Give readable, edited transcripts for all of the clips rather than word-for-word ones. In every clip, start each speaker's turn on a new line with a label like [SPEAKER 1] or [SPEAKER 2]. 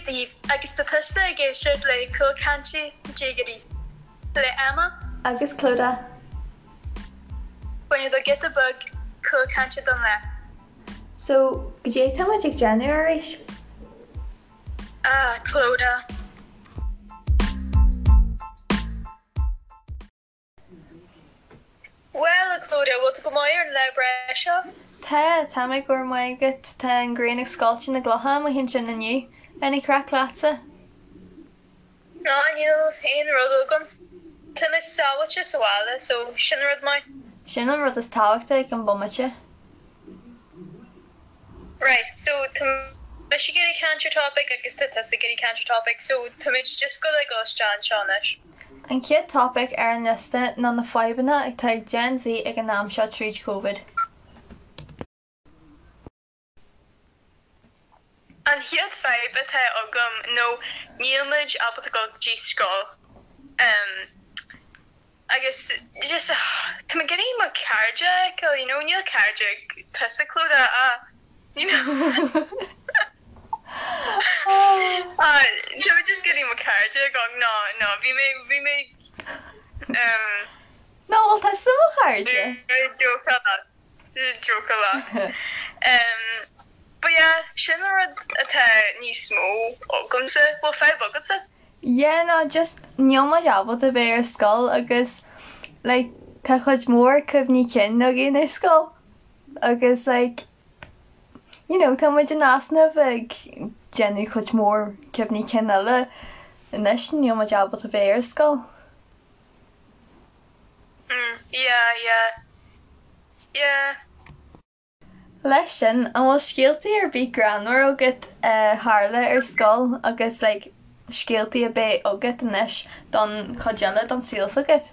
[SPEAKER 1] daoibh agus tá tusa ag éisteacht le Cúlchaint Déagóirí le Emma
[SPEAKER 2] agus Clodagh.
[SPEAKER 1] Bain do giota beag cúlchainte don lá.
[SPEAKER 2] So, goidé tá muid ag déanamh arís?
[SPEAKER 1] Ah, Clodagh. Bhuel, a Clodagh, bhfuil tú go maith ar an lá breá seo?
[SPEAKER 2] Tá, tá mé, go raibh maith agat. Tá an ghrian ag scoilteadh na gclocha amuigh ansin inniu. Any craic leatsa?
[SPEAKER 1] Ná, níl aon rud agam. Tá mé sábháilte sa bhaile, so sin rud maith.
[SPEAKER 2] Sin an rud is tábhachtaí ag an bomaite.
[SPEAKER 1] Right, so tá mise ag iarraidh caint ar topic agus tá tusa ag iarraidh caint ar topic, so táimid just goil ag dul isteach anseo anois.
[SPEAKER 2] An chéad topic ar an liosta ná na fadhbanna atá ag Gen Z ag an am seo tríd Covid.
[SPEAKER 1] An chéad fadhb atá agam nó níl muid ábalta dul go dtí scoil. Em. Agus just tá mé ag iarraidh mo chairde a fheiceáil, you know, níl cairde ag tusa Clodagh ah, you know. Ah, tá mé just ag iarraidh mo chairde a fheiceáil, no, no, bhí mé, bhí mé, um.
[SPEAKER 2] No, bhfuil tusa mo chairde?
[SPEAKER 1] Jócáil leat, jócáil leat. Um, but yeah, sin an rud atá níos mó agamsa, bhfuil fadhb agatsa?
[SPEAKER 2] Yeah no just níl muid ábalta bheith ar scoil agus like tá cuid mhór cuimhní cinn againn ar scoil agus like you know tá muid in easnamh ag déanamh cuid mhór cuimhní cinn eile anois níl muid ábalta bheith ar scoil.
[SPEAKER 1] Mm yeah yeah yeah.
[SPEAKER 2] Leis sin, an bhfuil scéaltaí ar bith greannmhar agat a tharla ar scoil agus like scéaltaí a bheidh agat anois don chuid eile don saol s'agat?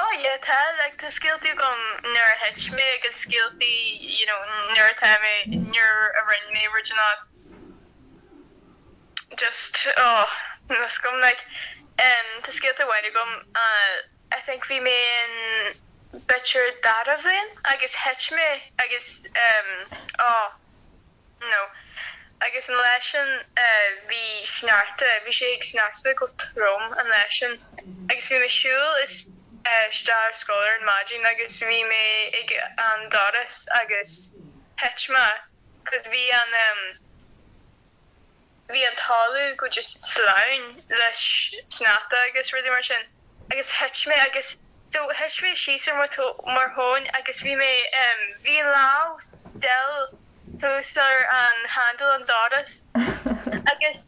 [SPEAKER 1] Oh yeah tá, like tá scéaltaí agam nuair a thit mé agus scéaltaí you know nuair atá mé, nuair a rinne mé rud inteacht just oh níl fhios agam like em tá scéalta amháin agam eh I think bhí mé in b'fhéidir dara bhliain agus thit mé agus em oh no agus an lá sin eh bhí sneachta, bhí sé ag sneachta go trom an lá sin agus bhí mé siúl is eh isteach ar scoil ar an maidin agus bhí mé ag an doras agus thit mé 'cause bhí an em Bhí an talamh go just sleamhain le sneachta agus rudaí mar sin agus thit mé agus so thit mé síos ar mo mo thóin agus bhí mé em bhí an lámh still thuas ar an handle an doras agus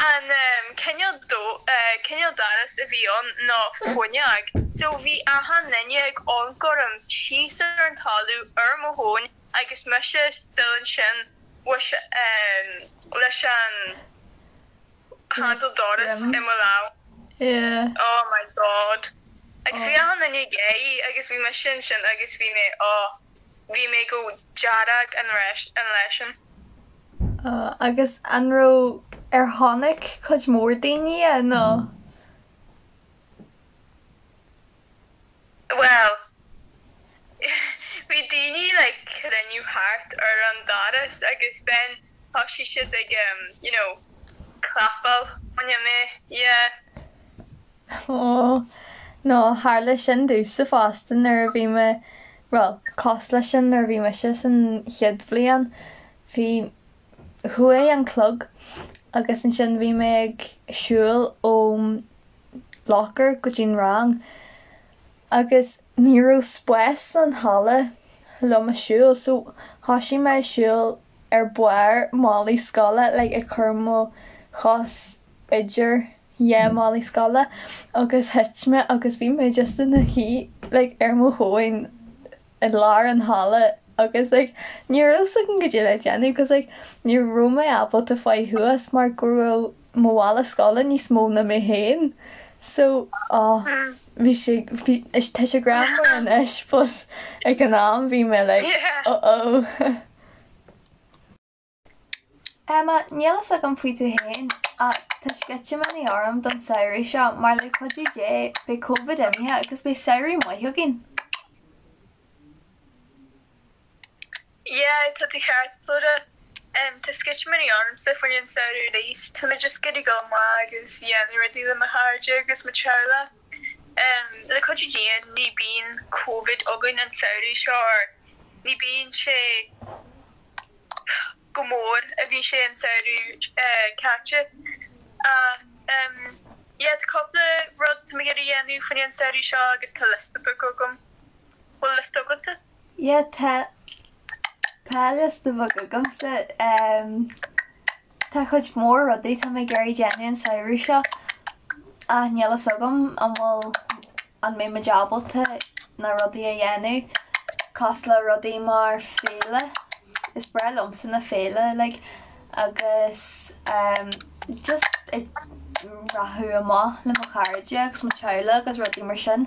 [SPEAKER 1] an em cineál do eh cineál doras a bhí ann ná fuinneog so bhí achan duine ag amharc orm síos ar an talamh ar mo thóin agus mise still ansin with leis an handle doras i mo lámh.
[SPEAKER 2] Yeah.
[SPEAKER 1] Oh my God. Agus bhí achan duine ag gáirí agus bhí mise ansin agus bhí mé oh bhí mé go dearg an an lá sin.
[SPEAKER 2] Oh, agus an raibh ar chonaic cuid mhór daoine é nó?
[SPEAKER 1] Bhuel, bhí daoine like cruinniú thart ar an doras agus then thosaigh siad ag um you know clapáil choinne mé, yeah.
[SPEAKER 2] Aww, no tharla sin domhsa fosta nuair a bhí mé, bhuel, cosúil leis sin nuair a bhí mise san chéad bhliain, bhí, chuaigh an clog agus ansin bhí mé ag siúl óm locker go dtí'n rang agus ní raibh spás san halla liom a siúl so thoisigh mé ag siúl ar barr málaí scoile like ag cur mo chos idir dhá málaí scoile agus thit mé agus bhí mé just ina shuí like ar mo thóin i lár an halla agus like ní raibh fhios agam goidé le déanamh cos like ní raibh mé ábalta fáil thuas mar go raibh mo mhála scoile níos mó ná mé féin so oh bhí sé bhí tá sé greannmhar anois but ag an am bhí mé like oh oh. Emma, níl fhios agam faoi tú féin, ach tá sceitimíní orm don samhradh seo mar le cuidiú Dé beidh Covid imithe agus beidh samhradh maith againn.
[SPEAKER 1] Yeah, tá tú ceart, Clodagh. Tá sceitimíní ormsa faoin an samhradh arís. Tá mé just ag iarraidh dul amach agus dhéanamh rudaí le mo chairde agus mo teaghlach. Le cuidiú Dé ní bíonn Covid againn an samhradh seo or ní bíonn sé go mór a bhí sé an samhradh caite. Ach yeah tá cúpla rud tá mé ag iarraidh dhéanamh faoin an samhradh seo agus tá liosta beag agam. Bhfuil liosta agatsa?
[SPEAKER 2] Yeah tá tá liosta beag agamsa. Tá cuid mhór rudaí tá mé ag iarraidh déanamh an samhradh seo ach níl fhios agam an bhfuil an mbeidh muid ábalta na rudaí a dhéanamh cosúil le rudaí mar féile is breá liomsa na féile like agus just ag rachadh amach le mo chairde agus mo teaghlach agus rudaí mar sin.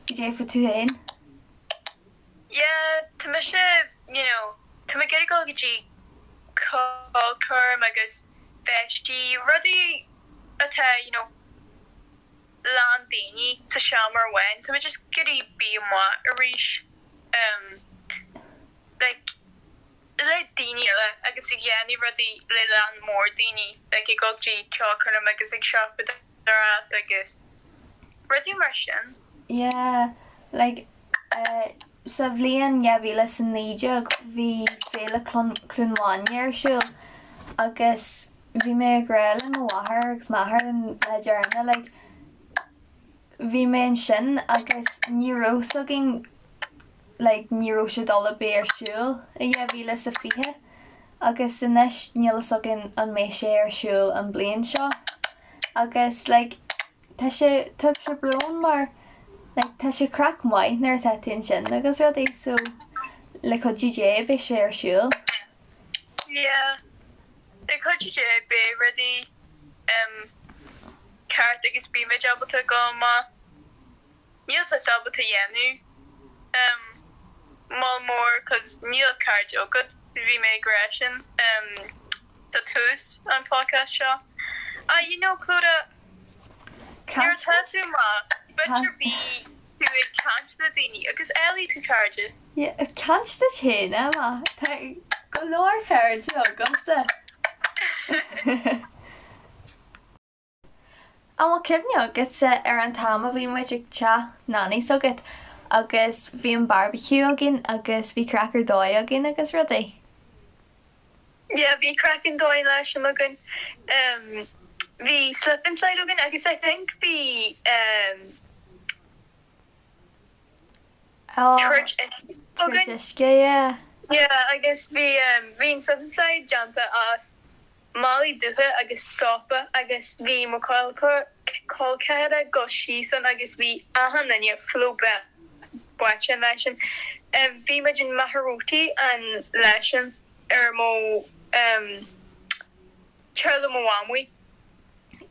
[SPEAKER 2] Cad é fá tú féin?
[SPEAKER 1] Yeah, tá mise, you know, tá mé ag iarraidh dul go dtí ceolchoirm agus feistí, rudaí atá, you know, lán daoine sa seomra amháin, tá mé just ag iarraidh bí amuigh arís, um, like, le daoine eile agus ag dhéanamh rudaí le lán mór daoine, like ag dul go dtí ceolchoirm agus ag siopadóireacht agus rudaí mar sin.
[SPEAKER 2] Yeah, like, eh, sa bhliain 2019 bhí Féile Cluain Mhaine ar siúl agus bhí mé ag rá le mo mháthair agus m'athair an lá deireanach like, bhí mé ansin agus ní raibh 's againn like ní raibh sé dul a bheith ar siúl i 2020 agus anois níl fhios againn an mbeidh sé ar siúl an bliain seo agus like tá sé tá sé brón mar like tá sé craic maith nuair atá tú ansin agus rudaí so le cuidiú Dé beidh sé ar siúl.
[SPEAKER 1] Yeah le cuidiú Dé beidh rudaí um ceart agus beimid ábalta dul amach. Níl tusa ábalta dhéanamh um moll mór cos níl cairde agat, bhí mé ag rá sin um sa tús an podcast seo. Ah you know Clodagh, nuair atá tú amach, b'fhéidir bí tú ag caint le daoine agus éalaigh tú cairde.
[SPEAKER 2] Yeah, caint duit féin, Emma. Tá go leor cairde agamsa. An bhfuil cuimhne agatsa ar an t-am a bhí muid ag teach Nanny s'agat agus bhí an barbecue againn agus bhí craic ar dóigh againn agus rudaí?
[SPEAKER 1] Yeah, bhí craic an dóigh leis sin againn. Bhí slip and slide againn agus I think bhí troid uisce
[SPEAKER 2] againn. Troid uisce, yeah.
[SPEAKER 1] Yeah, agus bhí bhí an slip and slide déanta as málaí dubha agus sópa agus bhí mo chol ceathara ag dul síos ann agus bhí achan duine full báite an lá sin. Bhí muid in Machaire Rabhartaigh an lá sin ar mo teaghlach mo mhamaí.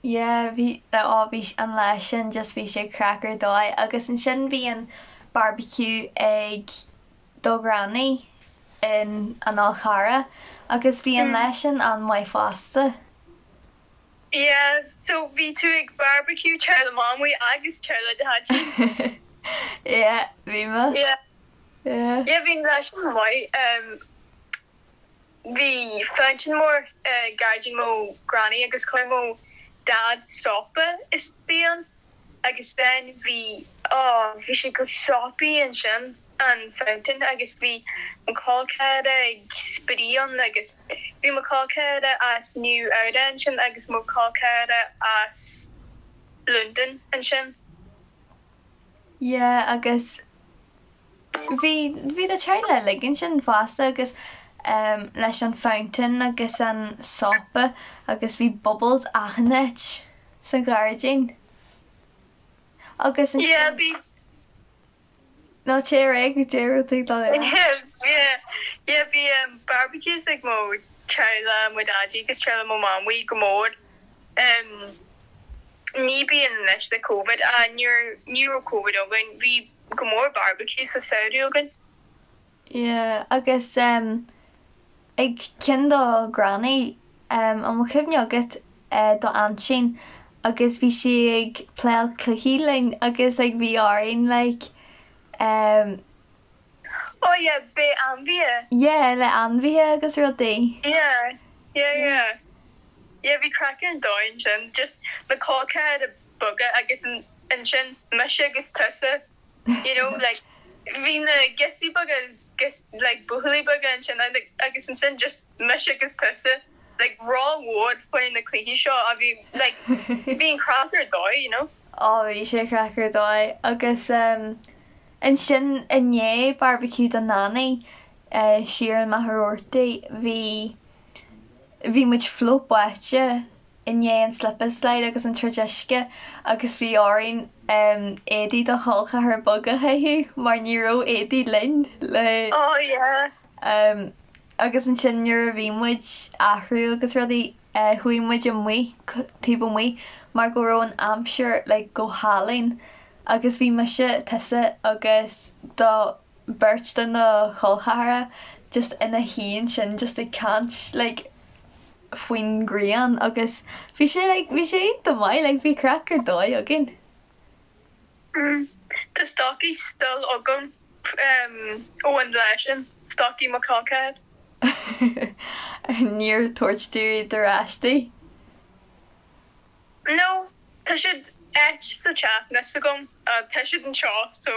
[SPEAKER 2] Yeah bhí oh bhí an lá sin just bhí sé craic ar dóigh agus ansin bhí an barbecue ag do ghranny in an Fhál Charrach agus bhí an lá sin an-mhaith fosta.
[SPEAKER 1] Yeah, so bhí tú ag barbecue teaghlach mamaí agus teaghlach dhaidí.
[SPEAKER 2] Yeah, bhí mé.
[SPEAKER 1] Yeah. Yeah. Yeah, bhí an lá sin maith. Um, Bhí fountain mór i gairdín mo granny agus chuir mo dad sópa istigh ann agus then bhí oh bhí sé go soapy ansin an fountain agus bhí mo chol ceathara ag spraoi ann agus bhí mo chol ceathara as Nua Eabhrac ansin agus mo chol ceathara as Londain ansin.
[SPEAKER 2] Yeah agus Bhí, bhí do teaghlach uilig ansin fosta agus ehm leis an fountain agus an sópa agus bhí bubbles achan áit san ghairdín. Agus ansin.
[SPEAKER 1] Yeah, bhí.
[SPEAKER 2] No, téigh ar aghaidh, cad é a raibh tú ag dul a rá.
[SPEAKER 1] Yeah, yeah, bhí ehm barbecues ag mo teaghlach, mo daidí agus teaghlach mo mamaí go mór. Ehm ní bíonn anois le Covid, ah nuair, ní raibh Covid againn, bhí go mór barbecue sa samhradh againn.
[SPEAKER 2] Yeah agus em ag ceann do granny em an bhfuil cuimhne agat eh do aintín agus bhí sí ag playáil cluichí linn agus like bhí orainn like em.
[SPEAKER 1] Oh yeah, beidh ainmhithe.
[SPEAKER 2] Yeah, le ainmhithe agus rudaí.
[SPEAKER 1] Yeah, yeah, yeah. Yeah, bhí craic ar dóigh ansin, just na col ceathracha beaga agus ansin mise agus tusa, you know, like bhí na girseachaí beaga agus like buachaillí beaga ansin agus ansin just mise agus tusa, like rómhór faoi na cluichí seo a bhí like bhí an craic ar dóigh, you know.
[SPEAKER 2] Oh, bhí sé craic ar dóigh agus um, Ansin i ndiaidh barbecue do Nanny siar in Machaire Rabhartaigh bhí bhí muid fliuch báite i ndiaidh an slip and slide agus an troid uisce agus bhí orainn éadaí do chol ceathar beag a chaitheamh mar ní raibh éadaí linn le
[SPEAKER 1] Oh yeah.
[SPEAKER 2] Agus ansin nuair a bhí muid athrú agus rudaí chuaigh muid amuigh taobh amuigh mar go raibh an aimsir like go hálainn Agus bhí mise, tusa agus do beirt de na chol ceathracha just ina shuí ansin just ag caint like faoin ghrian agus bhí sé like bhí sé iontach maith like bhí craic ar dóigh againn.
[SPEAKER 1] Mm. Tá stocaí still agam ó an lá sin, stocaí mo chol ceathar.
[SPEAKER 2] Níor tabhairt tú iad ar ais di?
[SPEAKER 1] No, tá siad áit sa teach, níl fhios agam, tá siad anseo, so.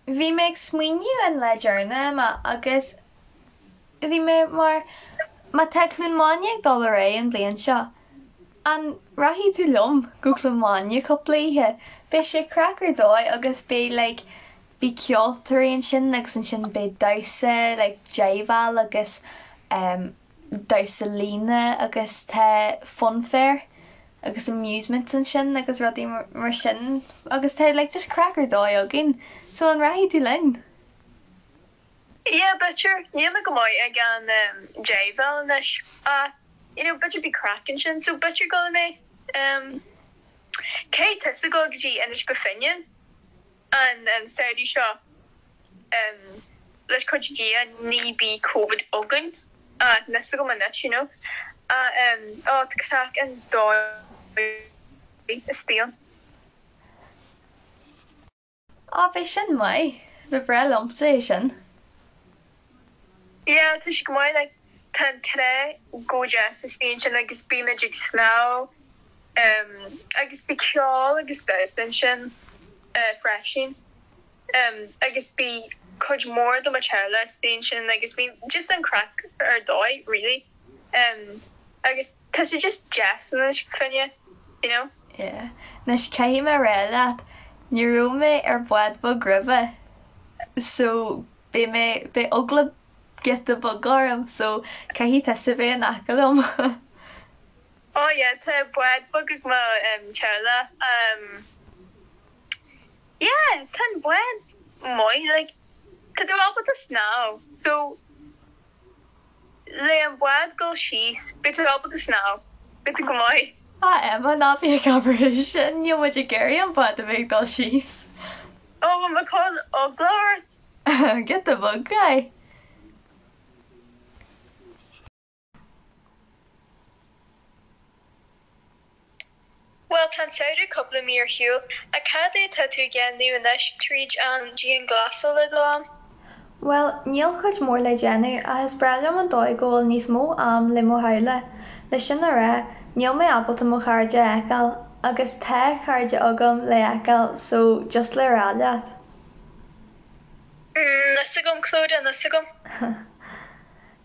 [SPEAKER 2] Bhí mé ag smaoineamh an lá deireanach, Emma, agus bhí mé mar, má tá Cluain Mháine ag dul ar aghaidh an bhliain seo, an rachaidh tú liom go Cluain Mháine cúpla oíche? Beidh sé craic ar dóigh agus beidh like, beidh ceoltóirí ansin agus ansin beidh damhsa like jiveáil agus em damhsa líne agus tá funfair agus amusements ansin agus rudaí mar sin agus tá like just craic ar dóigh againn so an rachaidh tú linn?
[SPEAKER 1] Yeah b'fhéidir, níl mé go maith ag an jiveáil anois ach you know b'fhéidir beidh craic ansin so b'fhéidir gabhfaidh mé. Caithfidh tusa a ghabháil go dtí Inis Bó Finne. An samhradh seo, leis cuidiú Dia, ní beidh Covid againn, níl fhios agam anois, you know. Ó, tá craic an dóigh istigh ann.
[SPEAKER 2] Á, beidh sin maith. Ba bhreá liomsa é sin.
[SPEAKER 1] Yeah, tá sé go maith, like, tá an trá go deas istigh ansin agus bímid ag snámh agus beidh ceol agus damhsa ansin freisin agus beidh cuid mhór de mo teaghlach istigh ansin agus bhí just an craic ar dóigh really agus tá sé just deas in Inis Bó Finne, you know.
[SPEAKER 2] Yeah. Anois caithfidh mé a rá leat, ní raibh mé ar bhád beag roimhe so beidh mé, beidh eagla giota beag orm so caithfidh tusa bheith in aice liom.
[SPEAKER 1] Oh yeah, tá bád beag ag mo teaghlach. Yeah, tá an bád maith, like, tá tú ábalta snámh, so le an bád dul síos, beidh tú ábalta snámh, beidh tú go maith.
[SPEAKER 2] Ah Emma, ná bí ag abair é sin, níl muid ag iarraidh an bád a bheith ag dul síos.
[SPEAKER 1] Oh, bhfuil mé ag cur eagla ort?
[SPEAKER 2] Giota beag, aye.
[SPEAKER 1] Bhuel, tá an samhradh cúpla mí ar shiúl, ach cad é atá tú ag déanamh anois tríd an dianghlasáil le dul ann?
[SPEAKER 2] Bhuel, níl cuid mhór le déanamh, ach is breá liom an dóigh go bhfuil níos mó am le mo theaghlach. Le sin a rá, níl mé ábalta mo chairde a fheiceáil, agus tá cairde agam le fheiceáil, so just le rá leat.
[SPEAKER 1] Níl fhios agam, Clodagh, níl fhios agam.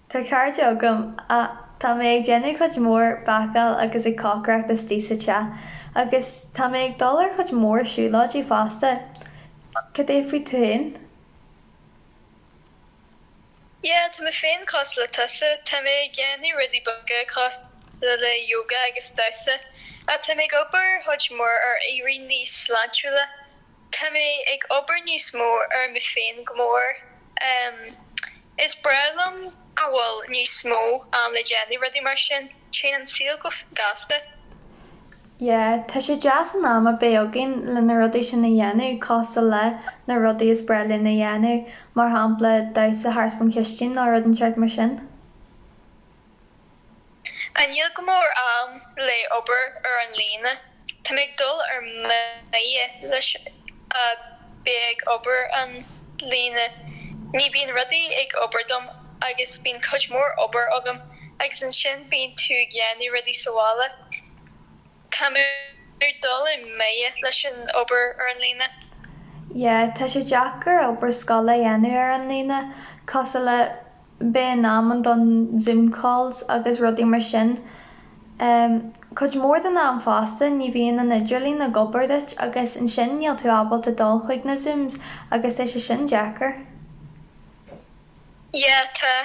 [SPEAKER 2] Tá cairde agam, ach tá mé ag déanamh cuid mhór bácáil agus ag cócaireacht istigh sa teach, agus tá mé ag dul ar chuid mhór siúlóidí fosta. Cad é faoi tú féin?
[SPEAKER 1] Yeah, tá mé féin cosúil le tusa, tá mé ag déanamh rudaí beaga cosúil le yoga agus damhsa, ach tá mé ag obair chuid mhór ar éirí níos sláintiúla. Tá mé ag obair níos mó ar mé féin go mór. Is breá liom go bhfuil níos mó am le déanamh rudaí mar sin. Téann an saol go gasta.
[SPEAKER 2] Yeah, tá sé deas an am a bheith againn le na rudaí sin a dhéanamh cosúil le na rudaí is breá linn a dhéanamh, mar shampla damhsa thart faoin chistin nó rud inteacht mar sin.
[SPEAKER 1] Ach níl go mór am le obair ar an líne. Tá mé ag dul ar mire leis. bheith ag obair an líne. Ní bíonn rudaí ag obair dom agus bíonn cuid mór obair agam agus ansin bíonn tú ag dhéanamh rudaí sa bhaile. Tá mé ag dul i mbeidh leis an obair ar an líne.
[SPEAKER 2] Yeah, tá sé deacair obair scoile a dhéanamh ar an líne, cosúil le beith in am don Zoom calls agus rudaí mar sin. Cuid mhór den am fosta ní bhíonn an idirlíon ag obair duit agus ansin níl tú ábalta dul chuig na Zooms agus tá sé sin deacair.
[SPEAKER 1] Yeah, tá.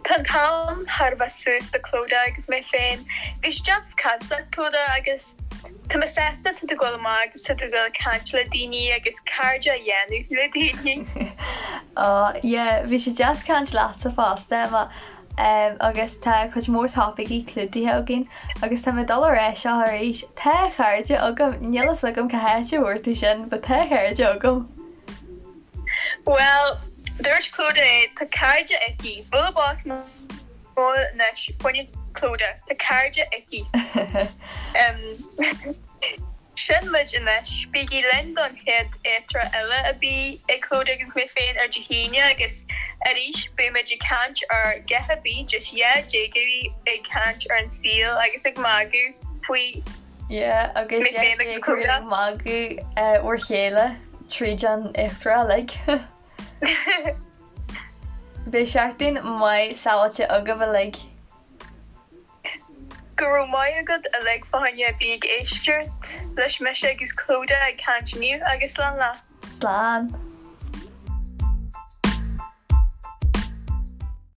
[SPEAKER 1] Tá an t-am thar a bheith suas do Clodagh agus mé féin. Bhí sé deas caint leat Clodagh agus tá mé sásta tá tú ag dul amach agus tá tú ag dul ag caint le daoine agus cairde a dhéanamh le daoine.
[SPEAKER 2] Ó yeah, bhí sé deas caint leatsa fosta Emma agus tá cuid mhór topaicí clúdaithe againn agus tá mé ag dul a rá seo arís, tá cairde agam, níl fhios agam cá háit a bhfuair tú sin but tá cairde agam.
[SPEAKER 1] Bhuel, dúirt Clodagh é, tá cairde aici. Bualadh bos mór anois, fá choinne Clodagh, tá cairde aici. Sin muid anois. Bígí linn don chéad eachtra eile a bheidh ag Clodagh agus mé féin ar Dé hAoine agus arís beidh muid ag caint ar a dhath ar bith, just dhá déagóirí ag caint ar an saol agus ag magadh faoi.
[SPEAKER 2] Yeah, agus Mé féin agus Clodagh. ag magadh bhur chéile tríd an eachtra uilig. Beidh seachtain maith sábháilte agaibh uilig.
[SPEAKER 1] Go raibh maith agat uilig fá choinne a bheith ag éisteacht leis mise agus Clodagh ag caint inniu agus slán leat.
[SPEAKER 2] Slán.